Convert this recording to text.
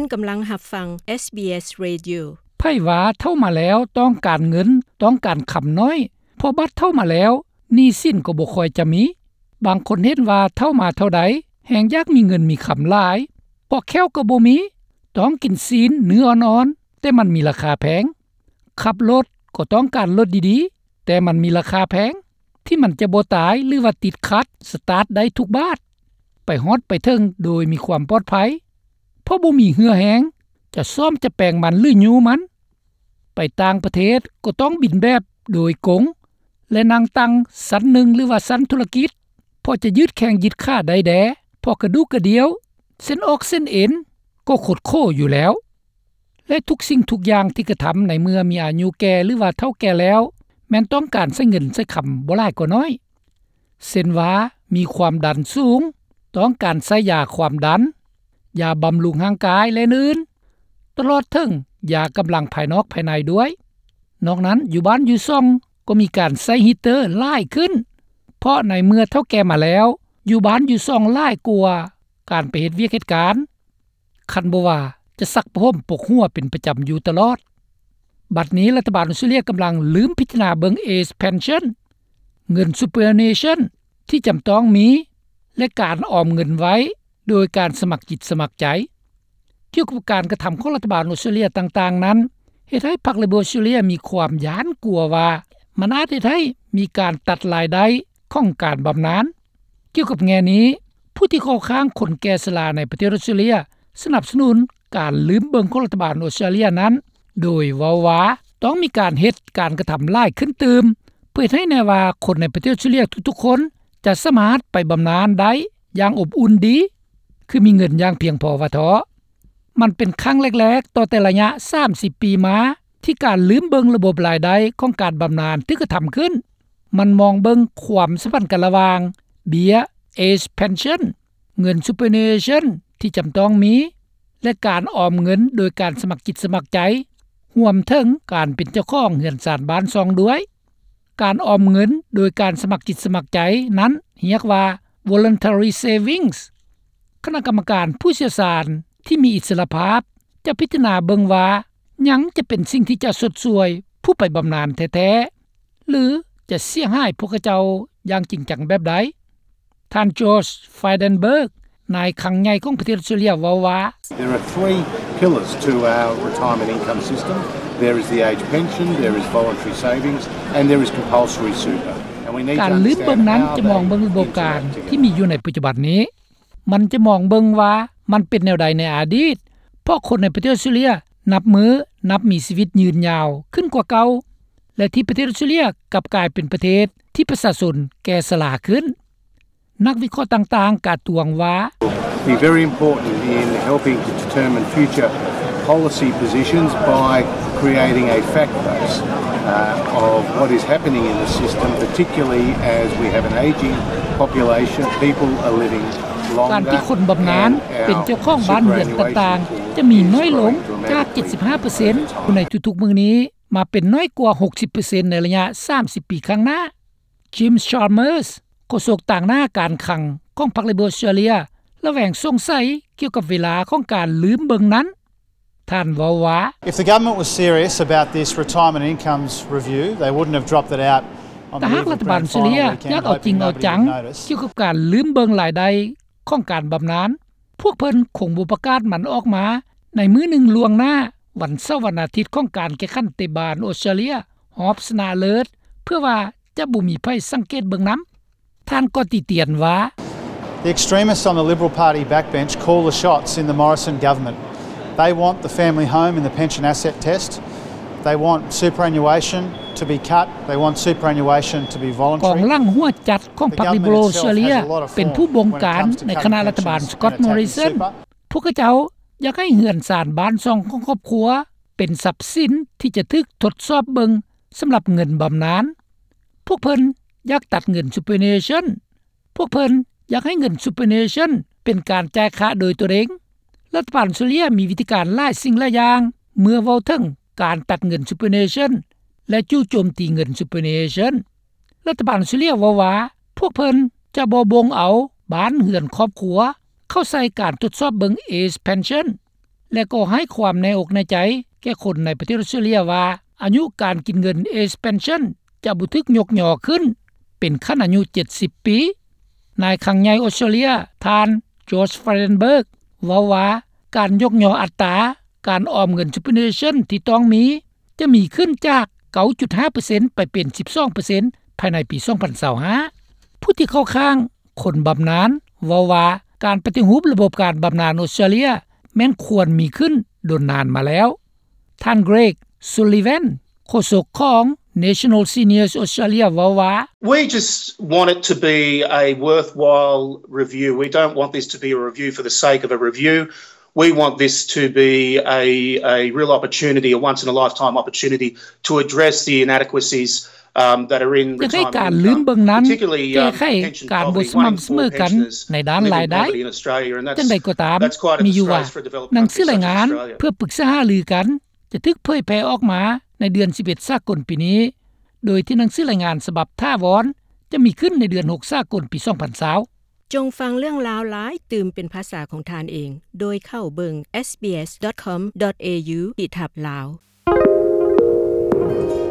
ນກຳລັງຮັບຟັງ ເອສບີເອສ Radio. ໃຜວ່າເຖົ້າມາແລ້ວຕ້ອງການເງິນ, ຕ້ອງການຄຳນ້ອຍ, ເພາະບັດເຖົ້າມາແລ້ວ ໜີ້ສິນກໍບໍ່ຄ່ອຍຈະມີ. ບາງຄົນເຫັນວ່າເຖົ້າມາເທົ່າໃດ ແຮ່ງຢາກມີເງິນມີຄຳຫຼາຍ, ເພາະແຂ້ວກໍບໍ່ມີ, ຕ້ອງກິນຊີ້ນເນື້ອອ່ອນໆ ແຕ່ມັນມີລາຄາແພງ. ຂັບລົດກໍຕ້ອງການລົດດີໆ ແຕ່ມັນມີລາຄາແພງ ທີ່ມັນຈະບໍ່ຕາຍ ຫຼືວ່າຕິດຂັດ ສະຕາດໄດ້ທຸກບາດ, ໄປຮອດໄປເຖິງໂດຍມີຄວາມປອດໄພ ເພາະບໍ່ມີເຫື່ອແຮງ ຈະສ້ອມຈະແປງມັນ ຫຼື ຍູ້ມັນ. ໄປຕ່າງປະເທດກໍຕ້ອງບິນແບບໂດຍກົງ ແລະ ນັ່ງຕັ່ງຊັ້ນໜຶ່ງ ຫຼືວ່າຊັ້ນທຸລະກິດ ເພາະຈະຍືດແຂ້ງຍືດຂາໄດ້ແດ່ ເພາະກະດູກກະດ່ຽວ ເສັ້ນອອກເສັ້ນເອັນກໍຄົດໂຂຢູ່ແລ້ວ. ແລະ ທຸກສິ່ງທຸກຢ່າງທີ່ກະທຳໃນເມື່ອມີອາຍຸແກ່ ຫຼືວ່າເຖົ້າແກ່ແລ້ວ ແມ່ນຕ້ອງການໃຊ້ເງິນໃຊ້ຄຳບໍ່ຫຼາຍກໍໜ້ອຍ. ເຊັ່ນວ່າ ມີຄວາມດັນສູງ, ຕ້ອງການໃຊ້ຢາຄວາມດັນ, ຢາບຳລຸງຮ່າງກາຍ ແລະ ອື່ນໆ, ຕະຫຼອດເຖິງຢາກຳລັງພາຍນອກພາຍໃນດ້ວຍ. ນອກນັ້ນ ຢູ່ບ້ານຢູ່ຊ່ອງກໍມີການໃຊ້ heater ຫຼາຍຂຶ້ນ, ເພາະໃນເມື່ອເຖົ້າແກ່ມາແລ້ວ ຢູ່ບ້ານຢູ່ຊ່ອງຫຼາຍກວ່າການໄປເຮັດວຽກເຮັດການ. ຄັນບໍ່ວ່າຈະຊັກຜ້າຫົ່ມປົກຫົວເປັນປະຈຳຢູ່ຕະຫຼອດ. ບັດນີ້ລັດຖະບານອອສເຕຣເລັຽກຳລັງລືມພິຈາລະນາເບິ່ງ Age Pension, ເງິນ Superannuation ທີ່ຈຳຕ້ອງມີ ແລະ ການອອມເງິນໄວ້ໂດຍການສະໝັກຈິດສະໝັກໃຈ. ກ່ຽວກັບການກະທຳຂອງລັດຖະບານອອສເຕຣເລັຽຕ່າງໆນັ້ນ ເຮັດໃຫ້ພັກ Liberal ອອສເຕຣເລັຽມີຄວາມຢ້ານກົວວ່າ ມັນອາດເຮັດໃຫ້ມີການຕັດລາຍໄດ້ຂອງການບຳນານ. ກ່ຽວກັບແງ່ນີ້, ຜູ້ທີ່ເຂົ້າຂ້າງຄົນແກ່ຊະລາໃນປະເທດອອສເຕຣເລັຽ ສະໜັບສະໜູນການລືມເບິ່ງຂອງລັດຖະບານອອສເຕຣເລັຽນັ້ນ ໂດຍເວົ້າວ່າຕ້ອງມີການເຮັດການກະທຳຫຼາຍຂຶ້ນຕື່ມ ເພື່ອເຮັດໃຫ້ແນ່ວ່າຄົນໃນປະເທດອອສເຕຣເລັຽທຸກໆຄົນຈະສາມາດໄປບຳນານໄດ້ຢ່າງອົບອຸ່ນດີ ຄືມີເງິນຢ່າງພຽງພໍວ່າເທາະ. ມັນເປັນຄັ້ງແລກໆຕໍ່ແຕ່ໄລຍະສາມສິບປີມາ ທີ່ການລືມເບິ່ງລະບົບລາຍໄດ້ຂອງການບຳນານຖືກກະທຳຂຶ້ນ. ມັນມອງເບິ່ງຄວາມສຳພັນກັນລະຫວ່າງເບ້ຍ Age Pension, ເງິນ Superannuation ທີ່ຈຳຕ້ອງມີ ແລະ ການອອມເງິນໂດຍການສະໝັກຈິດສະໝັກໃຈ, ຮວມເຖິງການເປັນເຈົ້າຂອງເຮືອນຊານບ້ານຊ່ອງດ້ວຍ. ການອອມເງິນໂດຍການສະໝັກຈິດສະໝັກໃຈນັ້ນຮຽກວ່າ Voluntary Savings. ຄະນະກຳມະການຜູ້ຊ່ຽວຊານທີ່ມີອິດສະຫຼະພາບ ຈະພິຈາລະນາເບິ່ງວ່າຫຍັງຈະເປັນສິ່ງທີ່ຈະຊົດຊ່ວຍຜູ້ໄປບຳນານແທ້ໆ ຫຼື ຈະເສຍຫາຍພວກເຂົາເຈົ້າຢ່າງຈິງຈັງແບບໃດ. ທ່ານ George Frydenberg, ນາຍຄັງໃຫຍ່ຂອງປະເທດອອສເຕຣເລັຽ ເວົ້າວ່າ, There are three pillars to our retirement income system. There is the age pension, there is voluntary savings, and there is compulsory super. And we need to ການລືມເບິ່ງນັ້ນຈະມອງເບິ່ງລະບົບການທີ່ມີຢູ່ໃນປັດຈຸບັນນີ້. ມັນຈະມອງເບິ່ງວ່າມັນເປັນແນວໃດໃນອະດີດ, ເພາະຄົນໃນປະເທດອອສເຕຣເລັຽນັບມື້ນັບມີຊີວິດຍືນຍາວຂຶ້ນກວ່າເກົ່າ ແລະ ທີ່ປະເທດອອສເຕຣເລັຽກັບກາຍເປັນປະເທດທີ່ປະຊາຊົນແກ່ຊະລາຂຶ້ນ. ນັກວິເຄາະຕ່າງໆກະຕວງວ່າ, Be very important in helping to determine future policy positions by creating a fact base, uh, of what is happening in the system, particularly as we have an aging population, people are living longer. ການທີ່ຄົນບຳນານເປັນເຈົ້າຂອງບ້ານເຮືອນຕ່າງໆ ຈະມີໜ້ອຍລົງຈາກເຈັດສິບຫ້າເປີເຊັນຢູ່ໃນທຸກໆມື້ນີ້ ມາເປັນໜ້ອຍກວ່າຫົກສິບເປີເຊັນໃນໄລຍະສາມສິບປີຂ້າງໜ້າ. Jim Chalmers, ໂຄສົກຕາງໜ້າການຄັງຂອງພັກ Liberal Australia ລະແວງສົງໄສກ່ຽວກັບເວລາຂອງການລືມເບິ່ງນັ້ນ. ທ່ານເວົ້າວ່າ, If the government was serious about this retirement incomes review, they wouldn't have dropped it out on the eve of Grand Final weekend, hoping nobody would notice. ຖ້າຫາກລັດຖະບານອອສເຕຣເລັຽຢາກເອົາຈິງເອົາຈັງກ່ຽວກັບການລືມເບິ່ງລາຍໄດ້ຂອງການບຳນານ, ພວກເພິ່ນຄົງບໍ່ປະກາດມັນອອກມາໃນມື້ໜຶ່ງລ່ວງໜ້າ ວັນເສົາວັນອາທິດຂອງການແຂ່ງຂັນເຕະບານອອສເຕຣເລັຽຮອບຊະນະເລີດ ເພື່ອວ່າຈະບໍ່ມີໃຜສັງເກດເບິ່ງນຳ. ທ່ານກໍຕິຕຽນວ່າ, The extremists on the Liberal Party backbench call the shots in the Morrison government. They want the family home in the pension asset test. They want superannuation to be cut. They want superannuation to be voluntary. ກອງຫຼັງຫົວຈັດຂອງພັກ Liberal Australia ເປັນຜູ້ບົງການໃນຄະນະລັດຖະບານ Scott Morrison. ພວກເຂົາເຈົ້າຢາກໃຫ້ເຮືອນຊານບ້ານຊ່ອງຂອງຄອບຄົວເປັນຊັບສິນທີ່ຈະຖືກທົດສອບເບິ່ງສຳລັບເງິນບຳນານ. ພວກເພິ່ນຢາກຕັດເງິນ Superannuation. ພວກເພິ່ນຢາກໃຫ້ເງິນ Superannuation ເປັນການຈ່າຍຄ່າໂດຍຕົນເອງ. ລັດຖະບານອອສເຕຣເລັຽມີວິທີການຫຼາຍສິ່ງຫຼາຍຢ່າງ ເມື່ອເວົ້າເຖິງການຕັດເງິນ Superannuation ແລະ ຈູ່ໂຈມຕີເງິນ Superannuation. ລັດຖະບານອອສເຕຣເລັຽເວົ້າວ່າ ພວກເພິ່ນຈະບໍ່ບົ່ງເອົາບ້ານເຮືອນຄອບຄົວເຂົ້າໃສ່ການທົດສອບເບິ່ງ Age Pension. ແລະກໍໃຫ້ຄວາມແນ່ອົກແນ່ໃຈ ແກ່ຄົນໃນປະເທດອອສເຕຣເລັຽວ່າ ອາຍຸການກິນເງິນ Age Pension ຈະບໍ່ຖືກຍົກຍໍຂຶ້ນ ເປັນຂັ້ນອາຍຸ 70 ປີ. ນາຍຄັງໃຫຍ່ອອສເຕຣເລັຽ ທ່ານ Josh Frydenberg ເວົ້າວ່າ ການຍົກຍໍອັດຕາ ການອອມເງິນ Superannuation ທີ່ຕ້ອງມີ ຈະມີຂຶ້ນຈາກ 9.5% ໄປເປັນ 12% ພາຍໃນປີ 2025. ຜູ້ທີ່ເຂົ້າຂ້າງຄົນບຳນານ ເວົ້າວ່າ ການປະຕິຮູບລະບົບການບຳນານອອສເຕຣເລັຽ ແມ່ນຄວນມີຂຶ້ນດົນນານມາແລ້ວ. ທ່ານ Greg Sullivan ໂຄສົກຂອງ National Seniors Australia ເວົ້າວ່າ We just want it to be a worthwhile review. We don't want this to be a review for the sake of a review. We want this to be a, a real opportunity, a once in a lifetime opportunity to address the inadequacies, um, that are in ຢາກໃຫ້ການລືມເບິ່ງນັ້ນ ແກ້ໄຂການບໍ່ສະໝ່ຳສະເໝີກັນໃນດ້ານລາຍໄດ້. ຈັ່ງໃດກໍຕາມ ມີຢູ່ວ່າ ໜັງສືລາຍງານເພື່ອປຶກສາຫາລືກັນ ຈະຖືກເຜີຍແຜ່ອອກມາໃນເດືອນ 11 ສາກົນປີນີ້ ໂດຍທີ່ໜັງສືລາຍງານສະບັບຖາວອນ ຈະມີຂຶ້ນໃນເດືອນ 6 ສາກົນປີ 2020. ຈົ່ງຟັງເລື່ອງລາວຫຼາຍຕື່ມເປັນພາສາຂອງທ່ານເອງ ໂດຍເຂົ້າເບິ່ງ SBS.com.au/lawrok